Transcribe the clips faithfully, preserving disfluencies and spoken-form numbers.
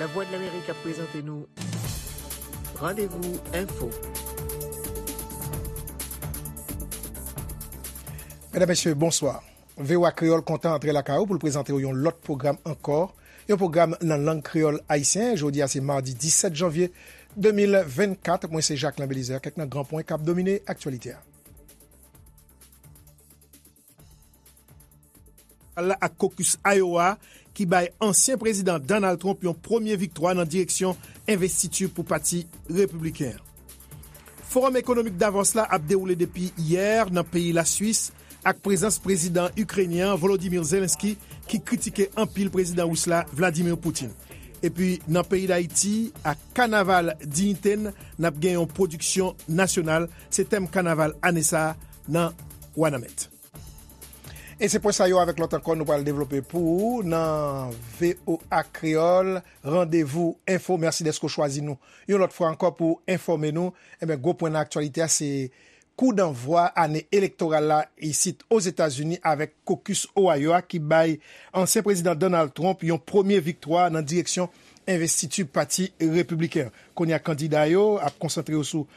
Lavwadlamerik ap prezante nou Randevou Enfo. Medam, mesye, bonswa. V O A Kreyòl kontan antre lakay ou pou l prezante w yon lòt pwogram ankò, yon pwogram nan lang kreyòl ayisyen. Jodi a se madi disèt janvye de mil vennkat. Mwen se Jacquelin Belizaire. Kèk nan gran pwen k ap domine aktyalite a. Ak kokis Iowa ki bay ansyen prezidan Donald Trump yon premye viktwa nan direksyon envestiti pou pati repibliken an. Fowòm ekonomik Davos la ap dewoule depi yè nan peyi Laswis, ak prezans prezidan ikrenyen an, Volodymyr Zelensky, ki kritike anpil prezidan ris la, Vladimir Putin. Epi nan peyi Dayiti, ak kanaval Diyite n, n ap gen yon pwodiksyon nasyonal. Se tèm kanaval ane sa a nan Wanament. E se pwen sa yo avèk lòt ankò nou pral devlope pou ou nan V O A Kreyòl Randevou Enfo. Mèsi dèske w chwazi nou yon lòt fwa ankò pou enfòme nou. Enben, gwo pwen nan aktyalite a, se kou danvwa ane elektoral la isit Ozetazini avèk kokis Ohio a ki bay ansyen prezidan Donald Trump yon premye viktwa nan direksyon envestiti pati repibliken an. Kounye a, kandida yo ap konsantre yo sou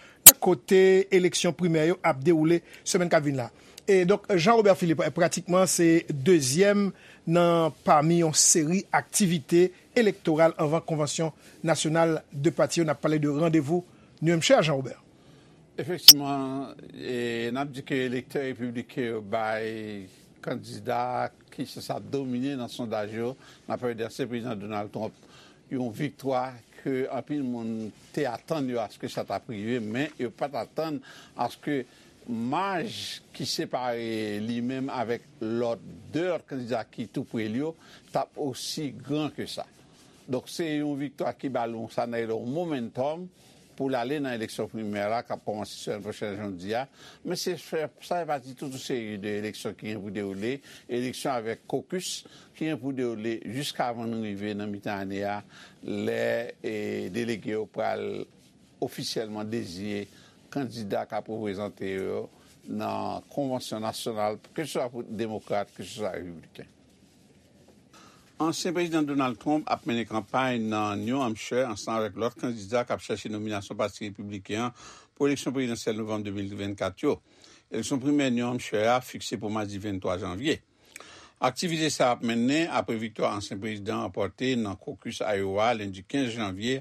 kote eleksyon primè yo ap dewoule semèn k ap vin la. E donk, Jean Robert Philippe, pratikman, se dezyèm nan pami yon seri aktivite elektoral anvan konvansyon nasyonal de pati yo. N ap pale de randevou New Hampshire, Jean Robert. Efektivman, e, n ap di ke elektè repibliken yo bay kandida ki sanse ap domine nan sondaj yo, n ap pale de ansyen prezidan Donald Trump, yon viktwa ke anpil moun te atann yo aske sa t ap rive, men yo pa t atann aske maj ki separe li menm avèk lòt, de lòt kandida ki tou pre l yo, t ap osi gran ke sa. Donk, se yon viktwa ki ba l yon, sa n rele yon momentum pou l ale nan eleksyon primè la, k ap kòmanse semèn pwochèn, jan w di a. Men se fè, sa fè pati tout yon seri de eleksyon ki gen pou dewoule, eleksyon avèk kokis ki gen pou dewoule jiskavan nou rive nan mitan ane a, lè, e, delege yo pral ofisyèlman deziye kandida k ap reprezante yo nan konvansyon nasyonal, keseswa pou demokrat, keseswa repibliken. Ansyen prezidan Donald Trump ap mennen kanpay nan New Hampshire ansanm avèk lòt kandida k ap chèche nominasyon pati repibliken an pou eleksyon prezidansyèl novanm de mil vennkat yo. Eleksyon primè New Hampshire a fikse pou madi venntwa janvye. Aktivite sa a ap mennen apre viktwa ansyen prezidan an ranpòte nan kokis Iowa lendi kenz janvye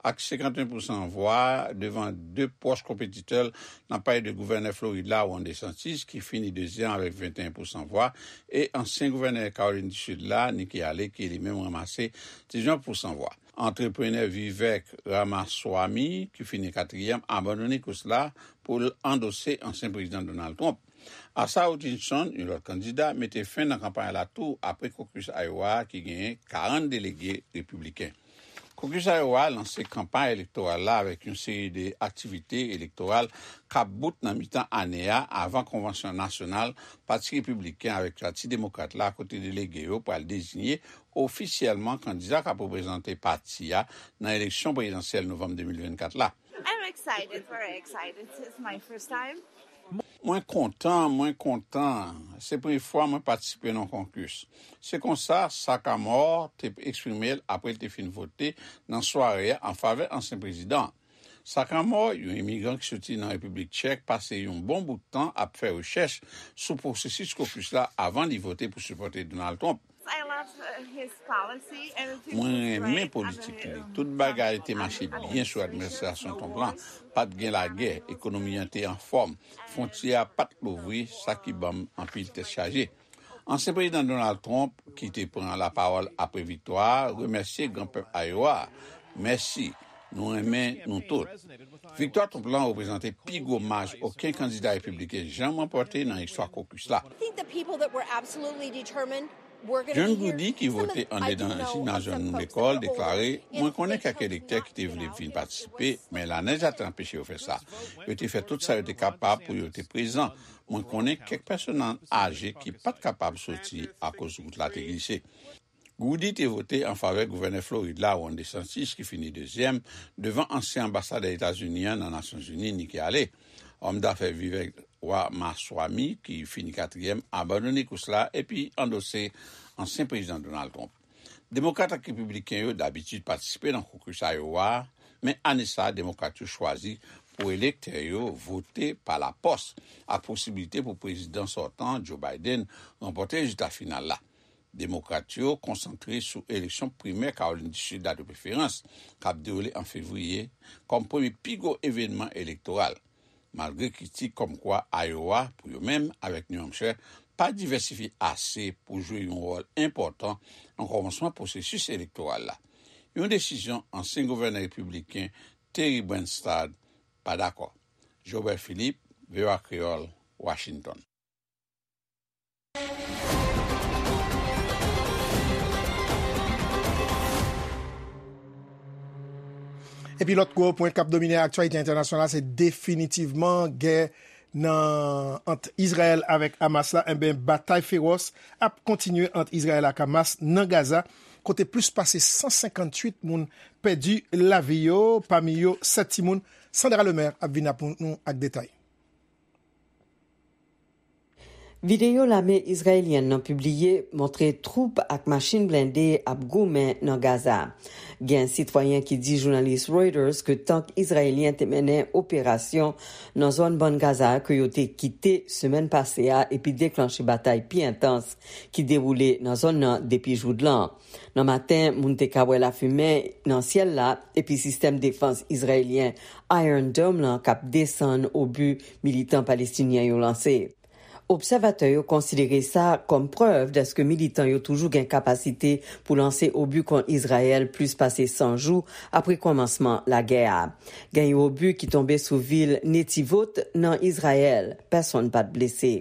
ak senkanteyen pousan vwa devan de pwòch konpetitè l, n ap pale de gouvènè Florid la, Ron DeSantis, ki fini dezyèm avèk venteyen pousan vwa, e ansyen gouvènè Kawolin di Sid la, Nikki Haley, ki li menm ranmase diznèf pousan vwa. Antreprenè Vivek Ramaswamy, ki fini katriyèm, abandone kous la pou l andose ansyen prezidan Donald Trump. Asa Hutchinson, yon lòt kandida, mete fen nan kanpay la tou apre kokis Iowa a ki genyen karant delege repibliken. Kokis Iowa a lanse kanpay elektoral la avèk yon seri de aktivite elektoral k ap bout nan mitan ane a avan konvansyon nasyonal Pati Repibliken avèk Pati Demokrat la, kote delege yo pral deziye ofisyèlman kandida k ap reprezante pati a nan eleksyon prezidansyèl novanm de mil vennkat la. I'm excited, very excited. It's my first time. Mwen kontan, mwen kontan. Se premye fwa mwen patisipe nan yon kokis. Se konsa Sagamore te eksprime l apre l te fin vote nan sware a an favè ansyen prezidan. Sagamore, yon imigran ki soti nan Repiblik Tchèk, pase yon bon bout tan ap fè rechèch sou pwosesis kokis la avan li vote pou sipòte Donald Trump. I love, uh, his policy. Everything was great. Mwen renmen politik li. Tout bagay te mache byen sou administrasyon Trump lan. Pa t gen lagè, ekonomi an te anfòm, fwontyè a pa t louvri, sa ki ban m anpil tèt chaje. Ansyen prezidan Donald Trump, ki te pran lapawòl apre viktwa a, remèsye gran pèp Iowa a. Mèsi, nou renmen nou tout. Viktwa Trump lan reprezante pi gwo maj okenn kandida repibliken janm ranpòte nan istwa kokis la. I think the people that were absolutely determined were gonna be here. John Goody, ki vote anndan jimnaz jèn lekòl, deklare, "Mwen konnen kèk elektè ki te vle vin patisipe, men lanèj la te anpeche yo fè sa. Yo te fè tout sa yo te kapab pou yo te prezan. Mwen konnen kèk pèsonn aje ki pa t kapab soti akoz wout la te glise." Goody te vote an favè gouvènè Florid la, Ron DeSantis, ki fini dezyèm, devan ansyen anbasadè Etazini an nan Nasyonzini, Nikki Haley. Òm dafè Vivek Ramaswamy, ki fini katriyèm, abandone kous la epi andose ansyen prezidan Donald Trump. Demokrat ak Repibliken yo dabitid patisipe nan kokis Iowa a, men ane sa a, Demokrat yo chwazi pou elektè yo vote pa lapòs, ak posibilite pou prezidan sòtan an, Joe Biden, ranpòte rezilta final la. Demokrat yo konsantre sou eleksyon primè Kawolin di Sid la de preferans, k ap dewoule an fevriye, kòm premye pi gwo evènman elektoral. Malgre kritik kòmkwa Iowa, pou yo menm, avèk New Hampshire, pa divèsifye ase pou jwe yon wòl enpòtan nan kòmansman pwosesis elektoral la. Yon desizyon ansyen gouvènè repibliken Terry Branstad pa dakò. Jobert Philippe, V O A Kreyòl, Washington. Epi lòt gwo pwen k ap domine aktyalite entènasyonal la, se definitivman gè nan, ant Izrayèl avèk Hamas la. Enben, batay fewòs ap kontinye ant Izrayèl ak Hamas nan Gaza, kote plis pase san senkantuit moun pèdi lavi yo, pami yo sèt timoun. Sandra Lemaire ap vin ap nou ak detay. Videyo lame izrayelyèn nan pibliye montre twoup ak machin blende ap goumen nan Gaza. Gen sitwayen ki di jounalis Reuters ke tank izrayelyen te mennen operasyon nan zòn Bann Gaza ke yo te kite semèn pase a epi deklanche batay pi entans ki dewoule nan zòn nan depi joudlan. Nan maten, moun te ka wè lafimen nan syèl la epi sistèm defans izrayelyen Iron Dome lan k ap desann obi militan palestinyen yo lanse. Obsèvatè yo konsidere sa kòm prèv dèske militan yo toujou gen kapasite pou lanse obi kont Izrayèl plis pase san jou apre kòmansman lagè a. Gen yon obi ki tonbe sou vil Netivot nan Izrayèl. Pèsonn pa t blese.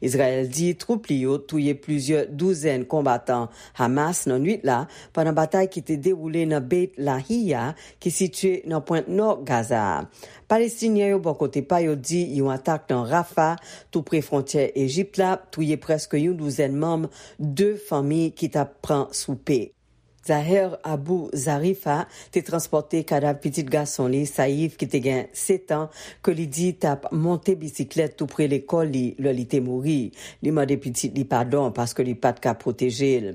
Izrayèl di twoup li yo touye plizyè douzèn konbatan Hamas nan nwit la, pandan batay ki te dewoule nan Beit Lahiya, ki sitiye nan pwent nò Gaza a. Palestinyen yo, bò kote pa yo, di yon atak nan Rafah, tou pre fwontyè Ejip la, touye prèske yon douzèn manm de fanmi ki t ap pran soupe. Zaher Abu Zarifa te transpòte kadav pitit gason li, Saif, ki te gen sèt an, ke li di t ap monte bisiklèt tou pre lekòl li lè li te mouri. Li mande pitit li padon paske li pa t ka pwoteje l.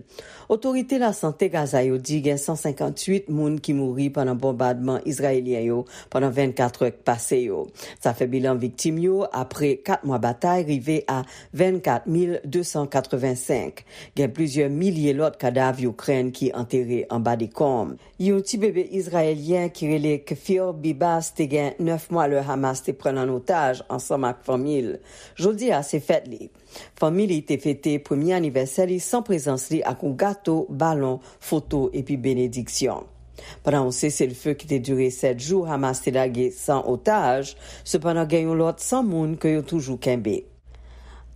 Otorite lasante Gaza yo di gen san senkantuit moun ki mouri pandan bonbadman izrayelyen yo pandan vennkat è k pase yo. Sa fè bilan viktim yo apre kat mwa batay rive a vennkat mil de san katrevensenk. Gen plizyè milye lòt kadav Ikrèn ki antere anba dekonm. Yon ti bebe izrayelyen ki rele Kfir Bibas te gen nèf mwa lè Hamas te pran l an otaj ansanm ak fanmi l. Jodi a se fèt li. Fanmi li te fete premye anivèsè li san prezans li ak yon gato, balon, foto epi benediksyon. Pandan yon seselfe ki te dire sèt jou, Hamas te lage san otaj, sepandan gen yon lòt san moun ke yo toujou kenbe.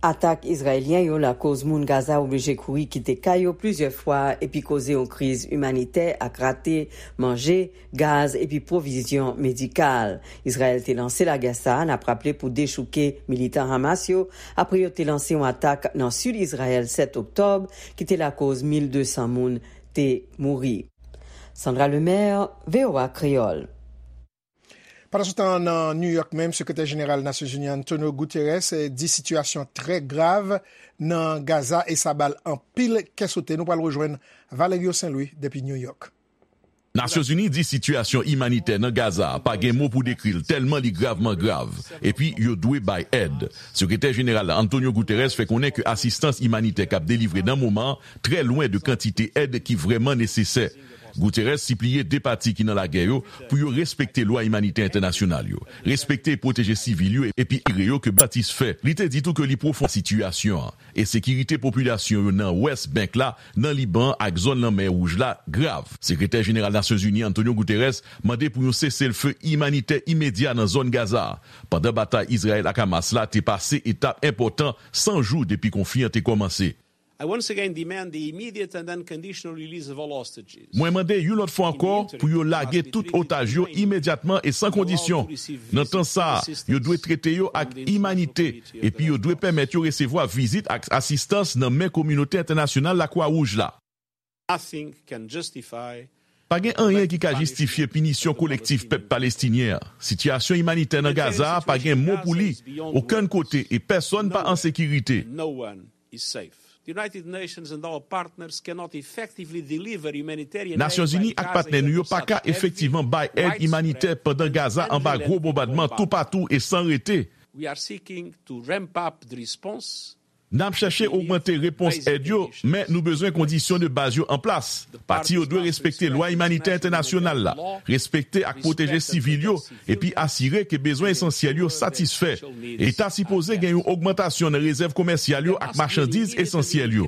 Atak izrayelyen yo lakoz moun Gaza oblije kouri kite kay yo plizyè fwa epi koze yon kriz imanitè ak rate manje, gaz epi pwovizyon medikal. Izrayèl te lanse lagè sa a, n ap raple, pou dechouke militan Hamas yo, apre yo te lanse yon atak nan sid Izrayèl sèt oktòb, ki te lakoz mil de san moun te mouri. Sandra Lemaire, V O A Kreyòl. Pandansetan, nan New York menm, Sekretè Jeneral Nasyonzini Antonio Guterres, eh, di sitiyasyon trè grav nan Gaza e sa ba l anpil kè sote. Nou pral rejwenn Valerio Saint Louis depi New York. Nasyonzini di sitiyasyon imanitè nan Gaza a pa gen mo pou dekri l, tèlman li gravman grav, epi yo dwe bay èd. Sekretè Jeneral la, Antonio Guterres, fè konnen ke asistans imanitè k ap delivre nan moman an trè lwen de kantite èd ki vrèman nesesè. Guterres sipliye de pati ki nan lagè yo pou yo respekte lwa imanitè entènasyonal yo, respekte e pwoteje sivil yo, epi asire yo ke batis fè. Li te di tou ke li pwofon sitiyasyon an e sekirite popilasyon yo nan West Bank la, nan Liban ak zòn Lanmè Wouj la grav. Sekretè Jeneral Nasyonzini Antonio Guterres mande pou yon seselfe imanitè imedya nan zòn Gaza a, pandan batay Izrayèl ak Hamas la te pase etap enpòtan san jou depi konfli an te kòmanse. I once again demand the immediate and unconditional release of all hostages. Mwen mande yon lòt fwa ankò pou yo lage tout otaj yo imedyatman e san kondisyon. Nan tan sa a, yo dwe trete yo ak imanite, epi yo dwe pèmèt yo resevwa vizit ak asistans nan men kominote entènasyonal Lakwa Wouj la. Nothing can justify Pa gen anyen ki ka jistifye pinisyon kolektif pèp palestinyen an. Sitiyasyon imanitè nan Gaza a pa gen mo pou li okenn kote e pèsonn pa an sekirite. No one is safe. Nasyonzini ak patnè nou yo pa ka efektivman bay èd imanitè pandan Gaza anba gwo bonbadman toupatou e san rete. N ap chèche ogmante repons èd yo, men nou bezwen kondisyon de baz yo an plas. Pati yo dwe respekte lwa imanitè entènasyonal la, respekte ak pwoteje sivil yo, epi asire ke bezwen esansyèl yo satisfè. E ta sipoze gen yon ogmantasyon nan rezèv komèsyal yo ak machandiz esansyèl yo.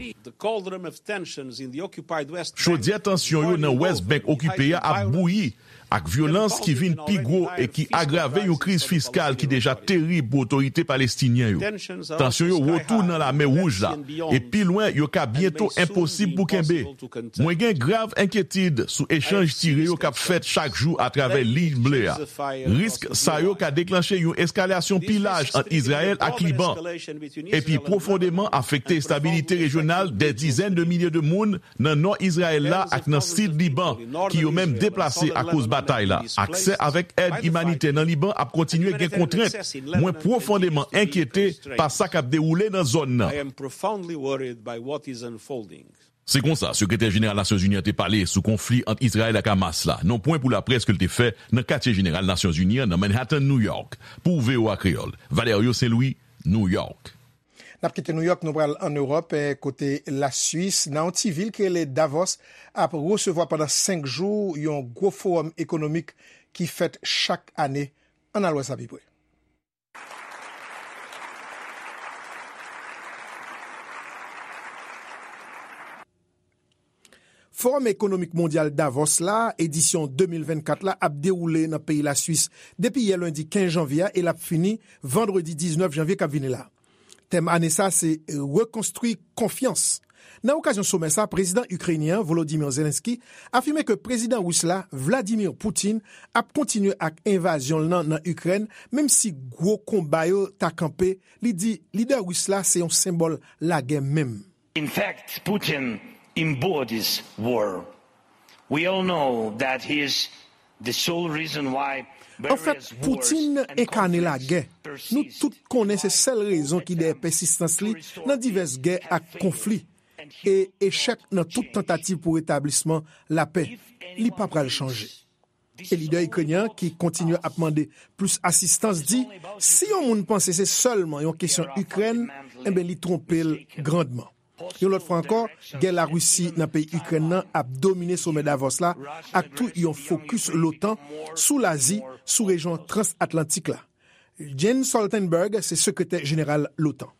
Chodyè tansyon yo nan West Bank okipe a ap bouyi, ak vyolans ki vin pi gwo e ki agrave yon kriz fiskal ki deja terib pou otorite palestinyen yo. Tansyon yo wo tou nan Lamè Wouj la, e pi lwen yo ka byento enposib pou kenbe. Mwen gen grav enkyetid sou echanj tire yo k ap fèt chak jou atravè Liy Ble a. Risk sa yo ka deklanche yon eskalasyon pi laj ant Izrayèl ak Liban, epi pwofondeman afekte estabilite rejyonal dè dizèn de milye de moun nan nò Izrayèl la ak nan sid Liban, ki yo menm deplase akoz batay la. Aksè avèk èd imanitè nan Liban ap kontinye gen kontrent. Mwen pwofondeman enkyete pa sa k ap dewoule nan zòn nan. Se konsa Sekretè Jeneral Nasyonzini an te pale sou konfli ant Izrayèl ak Hamas la, nan pwen pou laprès ke l te fè nan Katye Jeneral Nasyonzini an nan Manhattan, New York. Pou V O A Kreyòl, Valerio Saint-Louis, New York. N ap kite Nouyòk, nou pral ann Ewòp, eh, kote Laswis, nan yon ti vil ki rele Davos, ap resevwa pandan senk jou yon gwo fowòm ekonomik ki fèt chak ane. Ann al wè sa pi pre. Fowòm Ekonomik Mondyal Davos la, edisyon de mil vennkat la, ap dewoule nan peyi Laswis depi yè lendi kenz janvye a e l ap fini vandredi diznèf janvye k ap vini la. Tèm ane sa a se Rekonstwi konfyans. Nan okazyon somè sa a, prezidan ikrenyen an, Volodymyr Zelensky, afime ke prezidan ris la, Vladimir Putin, ap kontinye ak envazyon l nan nan Ikrèn, menm si gwo konba yo ta kanpe. Li di lidè ris la se yon senbòl lagè menm. In fact, Putin embodies war. We all know that he is the sole reason why Anfèt, Putin enkane lagè. Nou tout konnen se sèl rezon ki dèyè pèsistans li nan divès gè ak konfli e echèk nan tout tantativ pou retablisman lapè. Li pa pral chanje. E lidè ikrenyen an, ki kontinye ap mande plis asistans, di, si yon moun panse se sèlman yon kesyon Ikrèn, enben, li twonpe l grandman. Yon lòt fwa ankò, gè Larisi nan peyi Ikrèn nan ap domine somè Davos la ak tou yon fokis l'OTAN sou Lazi, sou rejyon transatlantik la. Jens Stoltenberg se sekretè jeneral l'OTAN.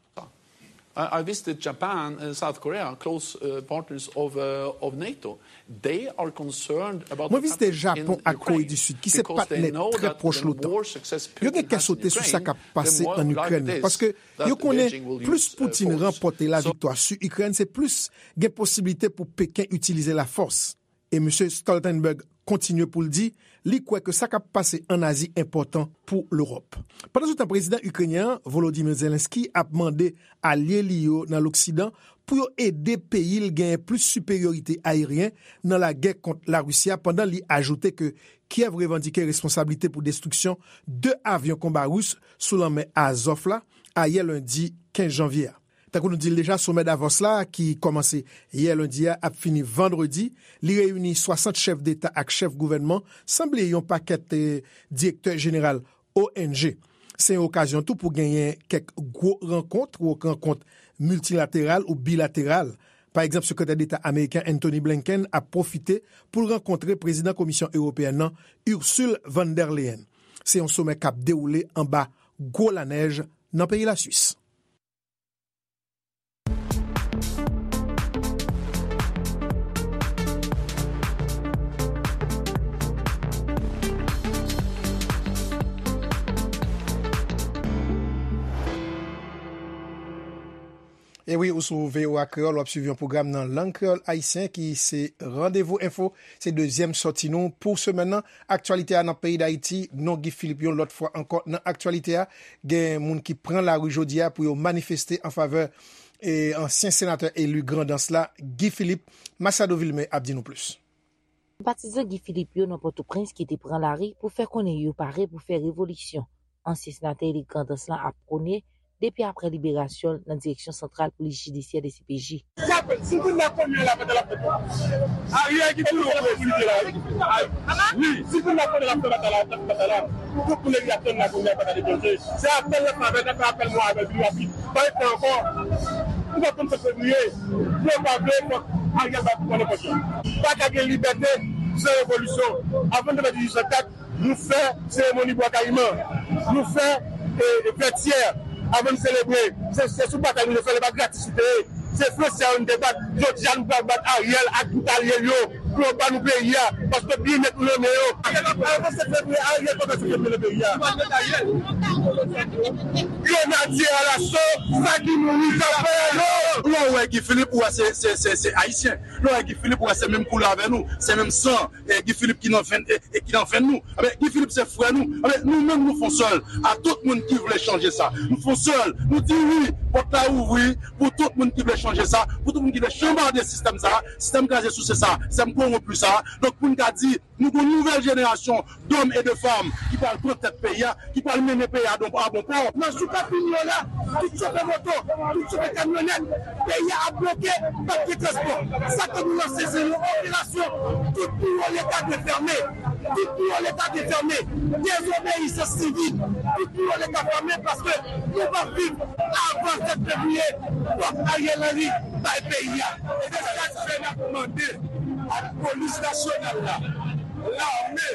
I, I visited Japan and South Korea, close uh, partners of, uh, of NATO. They are concerned about Mwen vizite Japon ak Kore di Sid, ki se patnè trè pwòch l'OTAN. Yo gen kè sote sou sa k ap pase ann Ikrèn nan, paske yo konnen plis Putin ranpòte laviktwa sou Ikrèn, se plis gen posiblite pou Peken itilize lafòs. E Mesye Stoltenberg kontinye pou l di li kwè ke sa k ap pase ann Azi enpòtan pou Lewòp. Pandansetan, prezidan ikrenyen an, Volodymyr Zelensky, ap mande alye li yo nan Loksidan pou yo ede peyi l genyen plis siperyorite ayeryen nan lagè kont Larisi a, pandan li ajoute ke Kyèv revandike responsablite pou destriksyon de avyon konba ris sou lanmè Azòf la, ayè lendi kenz janvye a. Tankou nou di l deja, somè Davos la, ki kòmanse yè lendi a, ap fini vandredi. Li reyini swasant chèf deta ak chèf gouvènman, san bliye yon pakèt, eh, direktè jeneral O N G. Se yon okazyon tou pou genyen kèk gwo rankont, ou rankont miltilateral ou bilateral. Pa egzanp, sekretè deta ameriken Antony Blinken ap pwofite pou l rankontre prezidan Komisyon Ewopeyèn nan, Ursule von der Leyen. Se yon somè k ap dewoule anba gwo lanèj nan peyi Laswis. E wi, ou sou V O A Kreyòl, w ap swiv yon pwogram nan lang kreyòl ayisyen ki se Randevou Enfo. Se dezyèm sòti nou pou semèn nan. Aktyalite a nan peyi Dayiti, non Guy Philippe yon lòt fwa ankò nan aktyalite a. Gen moun ki pran lari jodi a pou yo manifeste an favè, e, ansyen senatè eli Grandans la, Guy Philippe. Machado Vilmé ap di nou plis. Senpatizan Guy Philippe yo nan Pòtoprens ki te pran lari pou fè konnen yo pare pou fè revolisyon ansyen senatè eli Grandans lan ap pwone depi aprè liberasyon l nan Direksyon Santral Polis Jidisyè, D C P J. Si moun nan konnen l ap fè l ap fè. Ariel ki toujou pou li la. Wi, si moun nan konnen l ap fè batay la, l ap fè batay la. Tout moun deja tann la konnen batay deklanje. Se apèl l ap fè, apèl mwen avèl vini rapid. Pa gen tan ankò. Nou pa konn sèt fevriye. Nou pa vle fòk Ariel pa pran nenpòt jan. Pa ka gen libète san revolisyon. Avan n te fè dizuit san kat, nou fè seremoni Bwa Kayiman. Nou fè vètyè. Avan n selebre, se sou batay nou te fè l, e pa gratis li te ye. Se fransè yo n te bat. Jodi a nou pral bat Ariel ak tout alye l yo pou yo ba nou peyi a, paske byennèt nou nan men yo. Ariel ap fè sèt fevriye, Ariel pa ka sèt fevriye nan peyi a. Grenadye alaso, sa ki mouri sa fè yo. Lè w wè Guy Philippe, ou wè se, se, se, se ayisyen. Lè w wè Guy Philippe, ou wè se menm koulè avè nou, se menm san. E Guy Philippe ki nan venn, e, e ki nan venn nou. Ebyen, Guy Philippe se frè nou. Ebyen, nou menm nou fon sèl a tout moun ki vle chanje sa. Nou fon sèl. Nou di wi, pòt la ouvri pou tout moun ki vle chanje sa, pou tout moun ki vle chanbade sistèm sa, sistèm kraze souse sa, sistèm kowonpi sa. Donk, pou n ka di, nou gon nouvèl jenerasyon dòm e de fanm ki pral pran tèt peyi a, ki pral mennen peyi a a bon pò. Nan jou k ap vini yo la, tout chofè moto, tout chofè kamyonèt, peyi a ap bloke, p ap gen transpò. Sa k fè nou lanse se yon operasyon, tout biwo Leta dwe fèmen. Tout biwo Leta dwe fèmen. Dezobeyisans sivil. Tout biwo Leta fèmen paske nou p ap viv avan sèt fevriye. Fòk Ariel Henry bay peyi a. Se sa k fè n ap mande ak polis nasyonal la, lame,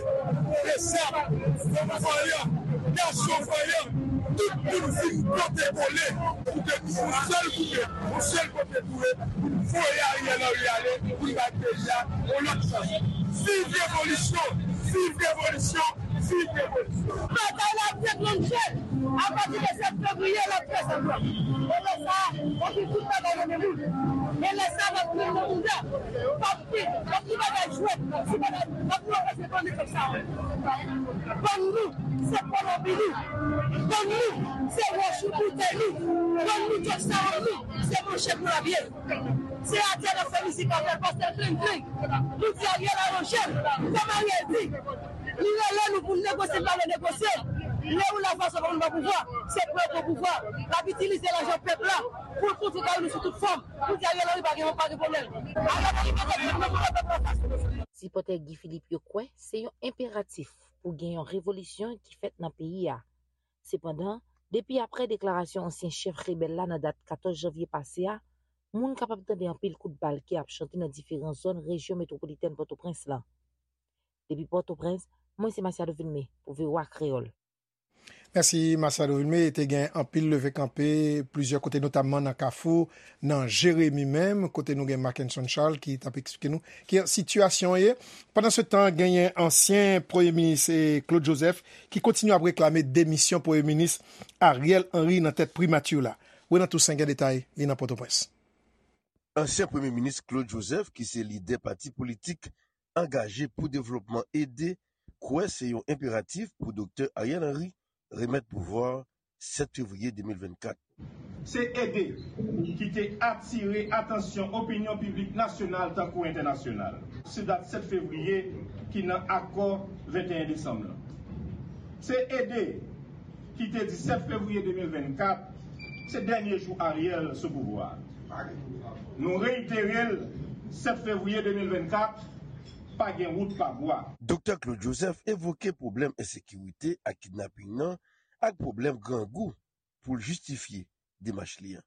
besap, fanm vanyan, gason vanyan, tout moun vin pote kole pou ke nou yon sèl koupe, yon sèl kote pou yo, pou n voye Ariel Henry ale, pou n bay peyi a yon lòt chans. Viv revolisyon! Viv revolisyon! Viv revolisyon! Batay la ap deklannche apati de sèt fevriye, l ap fè sanblan. E lè sa a, w ap gen tout bagay nan men moun. E lè sa a, n ap pran nan bouda. P ap gen, p ap gen bagay jwèt, ti bagay, n ap pran pase bann nèg sa yo. Bann nou, se pwolopi nou. Bann nou, se wòch boutèy nou. Bann nou, djòb sa yo nou, se manchèt nou l ap ye. Se atè n ap fè mizik avè l, pastè Kling Kling. Nou di Ariel aranje l, kòm Ariel di. Li rele nou pou n negosye, n pa vle negosye. Lè ou la fason pou nou pran pouvwa, se pou yo pran pouvwa. L ap itilize lajan pèp la pou l kontre kay nou sou tout fòm. Pou di Ariel Henry pa gen, pa gen pwoblèm. Ariel Henry pa gen pwoblèm, nou pran pèp la fason. Sipòtè Guy Philippe yo kwè se yon enperatif pou gen yon revolisyon ki fèt nan peyi a. Sepandan, depi aprè deklarasyon ansyen chèf rebèl la nan dat katòz janvye pase a, moun kapab tande anpil kout bal ki ap chante nan diferan zòn rejyon metwopolitèn Pòtoprens lan. Depi Pòtoprens, mwen se Masiado Vilmé pou V O A Kreyòl. Mèsi Masiado Vilmé. Te gen anpil leve kanpe plizyè kote, notamman nan Kafou, nan Jeremi menm, kote nou gen Mackenson Charles ki t ap eksplike nou ki sitiyasyon an ye. Pandansetan, genyen ansyen premye minis, eh, Claude Joseph ki kontinye ap reklame demisyon premye minis Ariel Henry nan tèt primati la. Renan Toussaint gen detay, li nan Pòtoprens. Ansyen premye minis Claude Joseph, ki se lidè pati politik Angaje pou Devlopman, ede, kwè se yon enperatif pou Doktè Ariel Henry remèt pouvwa a sèt fevriye de mil vennkat. Se ede ki te atire atansyon opinyon piblik nasyonal tankou entènasyonal sou dat sèt fevriye ki nan akò venteyen desanm lan. Se ede ki te di sèt fevriye de mil vennkat se dènye jou Ariel sou pouvwa a. Nou reitere l, sèt fevriye de mil vennkat, pa gen wout pa bwa. Doktè Claude Joseph evoke pwoblèm ensekirite ak kidnaping nan ak pwoblèm grangou pou l jistifye demach li an.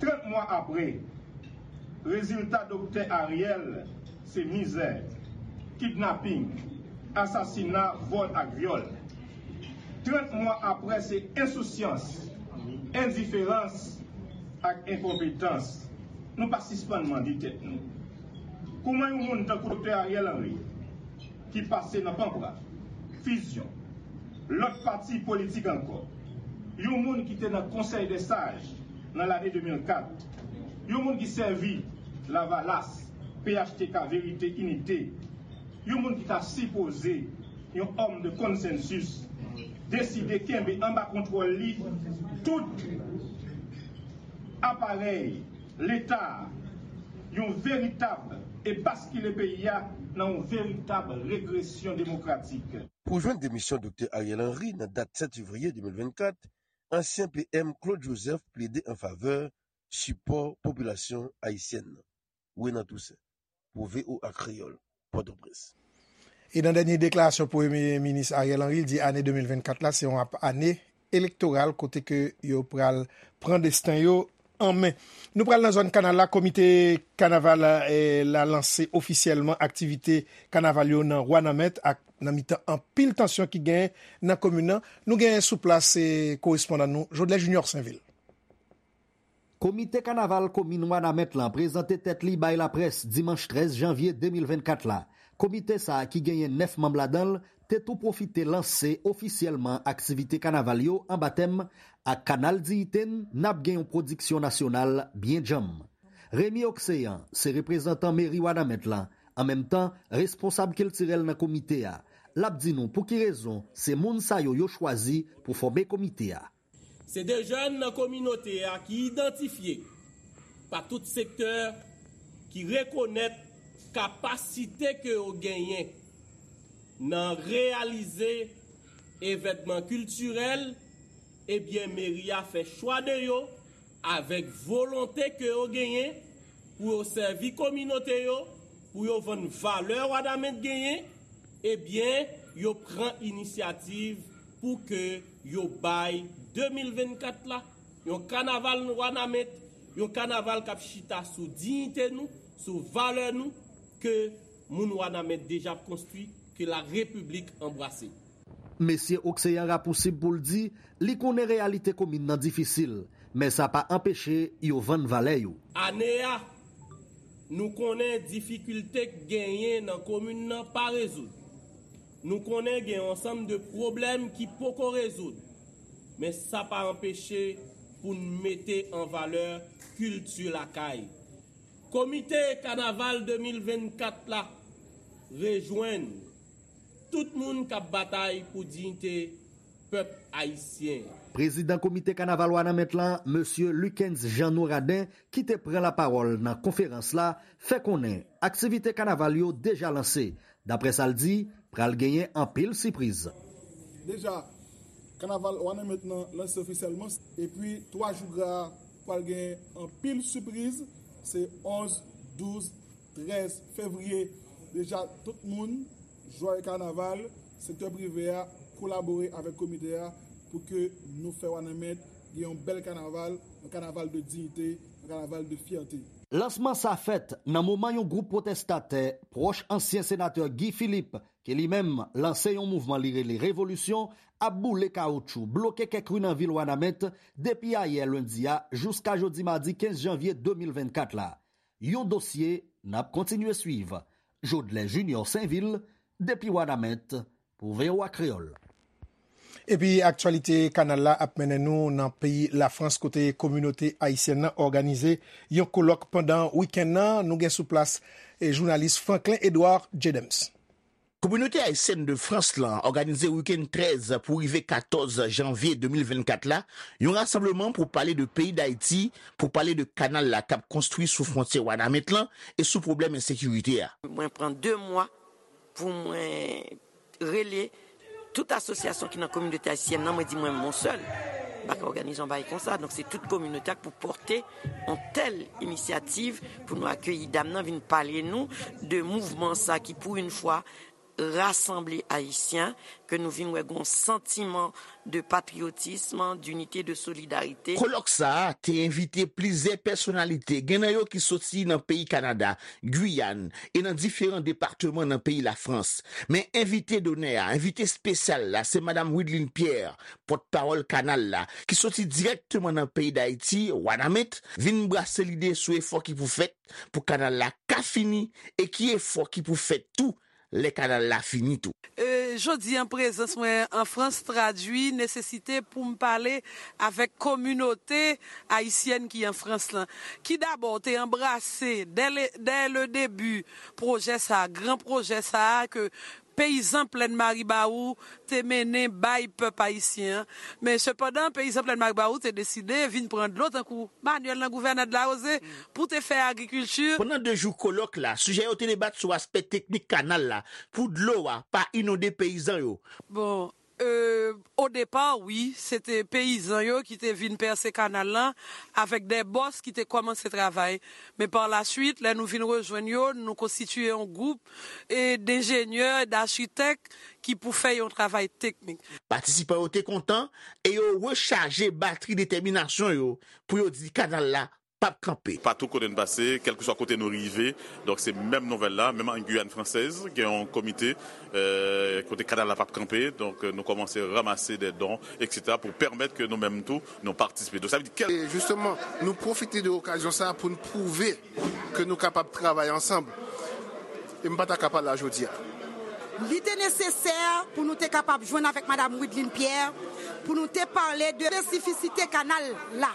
Trant mwa apre, rezilta Doktè Ariel se mizè, kidnaping, asasina, vòl ak vyòl. Trant mwa apre se ensousyans, endiferans ak enkonpetans. Nou pa sispann mande tèt nou, kouman yon moun tankou Doktè Ariel Henry, ki pase nan Panpra, Fizyon, lòt pati politik ankò, yon moun ki te nan Konsèy dè Saj nan lane de mil kat, yon moun ki sèvi Lavalas, P H T K, Verite, Inite, yon moun ki ta sipoze yon òm de konsensis, deside kenbe anba kontwòl li tout aparèy Leta a, yon veritab, e baskile peyi a nan yon veritab regresyon demokratik. Pou jwenn demisyon Doktè Ariel Henry nan dat sèt fevriye de mil vennkat, Ansyen P M Claude Joseph plede an favè sipò popilasyon ayisyèn nan. Renan Toussaint, pou V O A Kreyòl, Pòtoprens. E nan dènye deklarasyon Premye Minis Ariel Henry, l di ane de mil vennkat la se yon ap-, ane elektoral kote ke yo pral pran desten yo an men. Nou pral nan zòn Kanal la, komite kanaval, eh, la lanse ofisyèlman aktivite kanaval yo nan Wanament ak nan mitan anpil tansyon ki genyen nan komin nan. Nou genyen sou plas, eh, korespondan nou, Jodlè Junior Sainvil. Komite kanaval komin Wanament lan prezante tèt li bay laprès dimanch trèz janvye de mil vennkat la. Komite sa a ki genyen nèf manm ladan l te tou pwofite lanse ofisyèlman aktivite kanaval yo anba tèm ak Kanal Diyite n, n ap gen yon pwodiksyon nasyonal byen djanm. Remy Oxéan se reprezantan meri Wanament lan, an menm tan responsab kiltirèl nan komite a. L ap di nou pou ki rezon se moun sa yo yo chwazi pou fòme komite a. Se de jèn nan kominote a ki idantifye pa tout sektè, ki rekonèt kapasite ke yo genyen nan reyalize evènman kiltirèl, ebyen meri a fè chwa de yo avèk volonte ke yo genyen pou yo sèvi kominote yo, pou yo vann valè Wanament genyen, ebyen, yo pran inisyativ pou ke yo bay de mil vennkat la yon kanaval Wanament, yon kanaval k ap chita sou diyite nou, sou valè nou, ke moun Wanament deja ap konstwi, ke la repiblik anbrase. Mesye Oxéan rapousib pou l di li konnen reyalite komin nan difisil, men sa pa anpeche yo vann valè yo. Ane a, nou konnen difikilte k genyen nan komin nan pa rezoud. Nou konnen gen yon ansanm de pwoblèm ki poko rezoud, men sa pa anpeche pou n mete an valè kilti lakay. Komite kanaval de mil vennkat la rejwenn tout moun k ap batay pou diyite pèp ayisyen an. Prezidan Komite Kanaval Wanament lan, Mesye Lucens Jeannot Radin, ki te pran lapawòl nan konferans la, fè konnen aktivite kanaval yo deja lanse. Daprè sa l di, pral genyen anpil sipriz. Deja, kanaval Wanament lan lanse ofisyèlman, epi twa jou gra a pral gen anpil sipriz, se onz, douz, trèz fevriye. Deja, tout moun, jwè kanaval, sektè prive a, kolabore avèk komite a pou ke nou fè Wanament gen yon bèl kanaval, yon kanaval de diyite, yon kanaval de fyète. Lansman sa fèt nan moman yon gwoup pwotèstatè pwòch ansyen senatè Guy Philippe, ke li menm lanse yon mouvman li rele Revolisyon, ap boule kawotchou, bloke kèk ri nan vil Wanament depi ayè lendi a jiska jodi madi kenz janvye de mil vennkat la. Yon dosye n ap kontinye swiv. Jodlè Junior Sainvil, depi Wanament, pou V O A Kreyòl. Epi aktyalite kanal la ap mennen nou nan peyi Lafrans kote kominote ayisyèn nan òganize yon kolòk pandan wikenn nan. Nou gen sou plas, eh, jounalis Franklin Edouard Jedems. Kominote ayisyèn de Frans lan òganize wikenn trèz pou rive katòz janvye de mil vennkat la, yon rasanbleman pou pale de peyi Dayiti, pou pale de kanal la k ap konstwi sou fwontyè Wanament lan e sou pwoblèm ensekirite a. Mwen pran de mwa pou mwen rele tout asosyasyon ki nan kominote ayisyèn nan, mwen di mwen, mwen sèl m pa ka òganize yon bagay konsa. Donk, se tout kominote a k pou pòte yon tèl inisyativ pou nou akeyi dam nan vin pale nou de mouvman sa ki, pou yon fwa, rasanble Ayisyen, ke nou vin wè gon santiman de patriyotism, dinite, de solidarite. Kolòk sa a te envite plizyè pèsonalite, gen nan yo ki soti nan peyi Kanada, Giyàn e nan diferan depatman nan peyi Lafrans. Men envite donè a, envite espesyal la, se Madam Wideline Pierre, pòtpawòl kanal la, ki soti dirèkteman nan peyi Dayiti, Wanament, vin brase lide sou efò ki pou fèt pou kanal la ka fini e ki efò ki pou fèt tou lè kanal la fini tou. E, jodi an, prezans mwen an Frans tradui nesesite pou m pale avèk kominote ayisyèn ki an Frans lan, ki dabò te anbrase dè le, dè le debi pwojè sa a, gran pwojè sa a ke peyizan Plèn Maribawou te mennen bay pèp ayisyen an. Men sepandan, peyizan Plèn Maribawou te deside vin pran dlo tankou Manyèl nan Gouvènè Dlawoze pou te fè agrikilti. Pandan de jou kolòk la, sijè yo te debat sou aspè teknik kanal la pou dlo a pa inonde peyizan yo. Bon, Euh, au départ, wi, se te peyizan yo ki te vin pèse kanal lan avèk de bòs ki te kòmanse travay. Men par la suite, lè nou vin rejwenn yo, nou konstitiye yon gwoup, e, denjenyè, dachitèk ki pou fè yon travay teknik. Patisipan yo te kontan e yo rechaje batri detèminasyon yo pou yo di kanal la p ap kanpe. Patou kote n pase, kèlkeswa kote nou rive, donk se menm nouvèl la, menm an Guyane Française, gen yon komite, euh, kote kanal la p ap kanpe, donk, euh, nou kòmanse ranmase de don, et cetera, pou pèmèt ke nou menm tou, nou patisipe. Donk, sa vle di kèl- E jisteman, nou pwofite de okazyon sa a pou n pwouve ke nou kapab travay ansanm. E m pa ta ka pa la jodi a. Li te nesesè pou nou te kapab jwenn avèk Madam Wideline Pierre, pou nou te pale de espesifisite kanal la.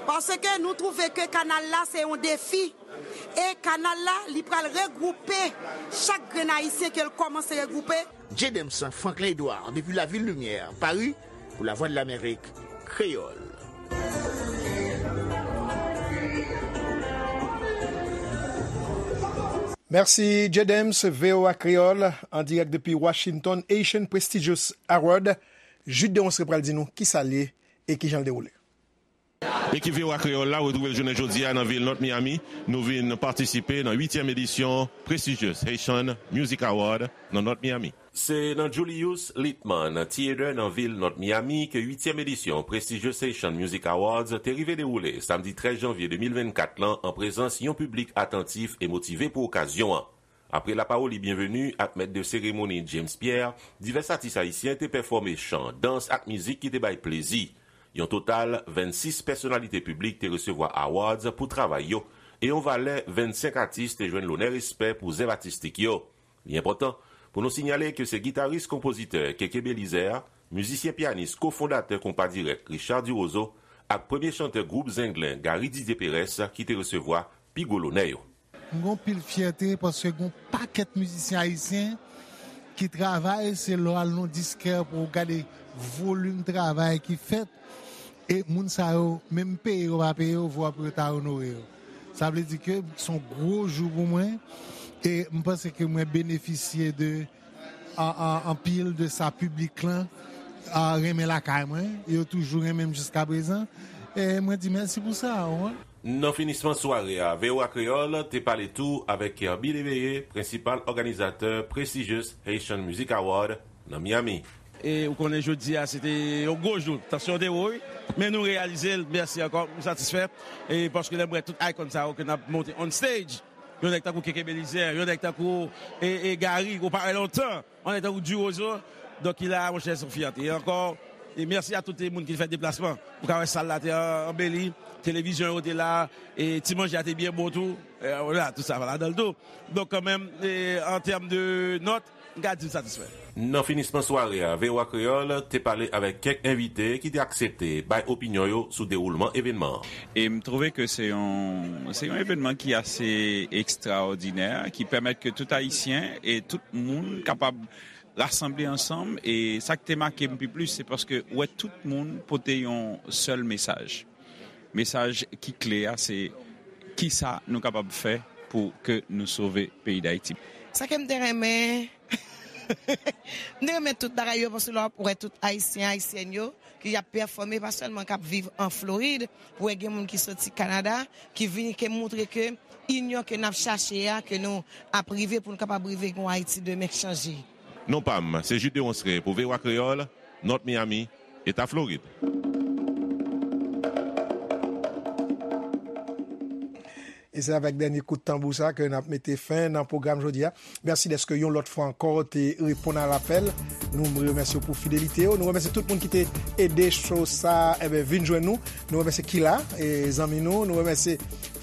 Paske nou twouve ke kanal la se yon defi. E kanal la, li pral regwoupe chak grenn Ayisyen ke l kòmanse regwoupe. J. Dems Franklin Edouard, depi Lavil Limyè, Pari, pou Lavwadlamerik Kreyòl. Mèsi, J. Dems, V O A Kreyòl, an dirèk depi Washington, Haitian Prestigious Award. Jude Deronceray pral di nou kisa l ye e kijan l dewoule. Ekip V O A Kreyòl la retwouve l jounen jodi a nan vil North Miami. Nou vin patisipe nan uityèm edisyon Prestigious Haitian Music Award nan North Miami. Se nan Julius Littman Theater nan vil North Miami ke uityèm edisyon Prestigious Haitian Music Awards te rive dewoule samdi trèz janvye de mil vennkat lan an prezans yon piblik atantif e motive pou okazyon an. Apre lapawoli byenveni ak mèt de seremoni James Pierre, divès atis ayisyen te pèfòme chan, dans ak mizik ki te bay plezi. Yon total vennsis pèsonalite piblik te resevwa awards pou travay yo, e yon valè vennsenk atis te jwenn lonè respè pou zèv atistik yo. Li enpòtan pou nou sinyale ke se gitaris-konpozitè Keke Belizaire, mizisyen-pyanis kofondatè Konpa Dirèk Richard Duroseau ak premye chantè gwoup Zenglen Gary Didier Perès ki te resevwa pi gwo lonè yo. M gen anpil fyète paske gen yon pakèt mizisyen ayisyen ki travay, se lè w al nan diskè pou w gade volim travay ki fèt, e moun sa yo, menm peye yo pa peye yo, vwa pou yo ta onore yo. Sa vle di ke se yon gwo jou pou mwen, e m panse ke mwen benefisye de an, an, anpil de sa piblik lan, a, renmen lakay mwen. Yo toujou renmen m jiska prezan. E mwen di mèsi pou sa, w konprann? Nan finisman sware a, V O A Kreyòl te pale tou avèk Kerby Léveillé, prensipal òganizatè Prestigious Haitian Music Award nan Miami. E ou konnen jodi a, se te yon gwo jou. Tansyon te wo, wi. Men nou reyalize l. Mèsi ankò. M satisfè. E paske lè m wè tout icon sa yo ke n ap monte on stage, yon nèg tankou Keke Belizaire, yon nèg tankou, e, e, Gary, ou pa wè lontan. Yon nèg tankou Duroseau. Donk, ki la, monchè, se yon fyète. E ankò, e mèsi a tout moun ki fè deplasman. Ou ka wè sal la te an-, anbeli, televizyon yo te la, e ti manje a te byen bon tou. E, vwala, tout sa va ladan l tou. Donk, kanmenm, e, an tèm de nòt, m ka di m satisfè. Nan finisman sware a, V O A Kreyòl te pale avèk kèk envite ki te aksepte bay opinyon yo sou dewoulman evènman an. E m twouve ke se yon, se yon evènman ki ase ekstraòdinè, ki pèmèt ke tout Ayisyen e tout moun kapab rasanble ansanm. E sa k te make m pi plis, se paske w wè tout moun pote yon sèl mesaj. Mesaj ki kle a, se kisa nou kapab fè pou ke nou sove peyi Dayiti. Sa ke m te renmen, m te renmen tout bagay yo, paske lè w ap wè tout Ayisyen, Ayisyèn yo, ki ap pèfòme, pa sèlman k ap viv an Florid, ou wè gen moun ki soti Kanada, ki vini, ke moutre ke inyon ke n ap chache a, ke nou ap rive pou nou kapab rive gen yon Ayiti demen k chanje. Non pa m, se Jude Deronceray pou V O A Kreyòl, North Miami, Eta Florid. E se avèk dènye kout tanbou sa ke n ap mete fen nan pwogram jodi a. Mèsi dèske yon lòt fwa ankò te reponn a lapèl. Nou remèsye w pou fidelite w. Nou remèsye tout moun ki te ede show sa, enben, vin jwenn nou. Nou remèsye Kila, e, zanmi nou. Nou remèsye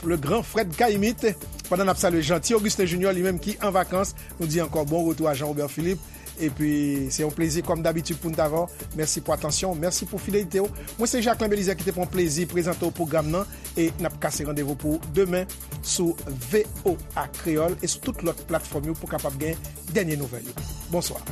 le grand Fred Caïmite. Pandan n ap salye Jeanty Augustin Junior, li menm ki an vakans, nou di ankò bon retou a Jean Robert Philippe. Epi, se yon plezi, kòm dabitid, pou n t avè w. Mèsi pou atansyon w, mèsi pou fidelite w. Mwen, se Jacquelin Belizaire ki te pran plezi prezante w pwogram nan. E n ap kase randevou pou demen sou V O A Kreyòl e sou tout lòt platfòm yo pou w kapab gen dènye nouvèl yo. Bonswa.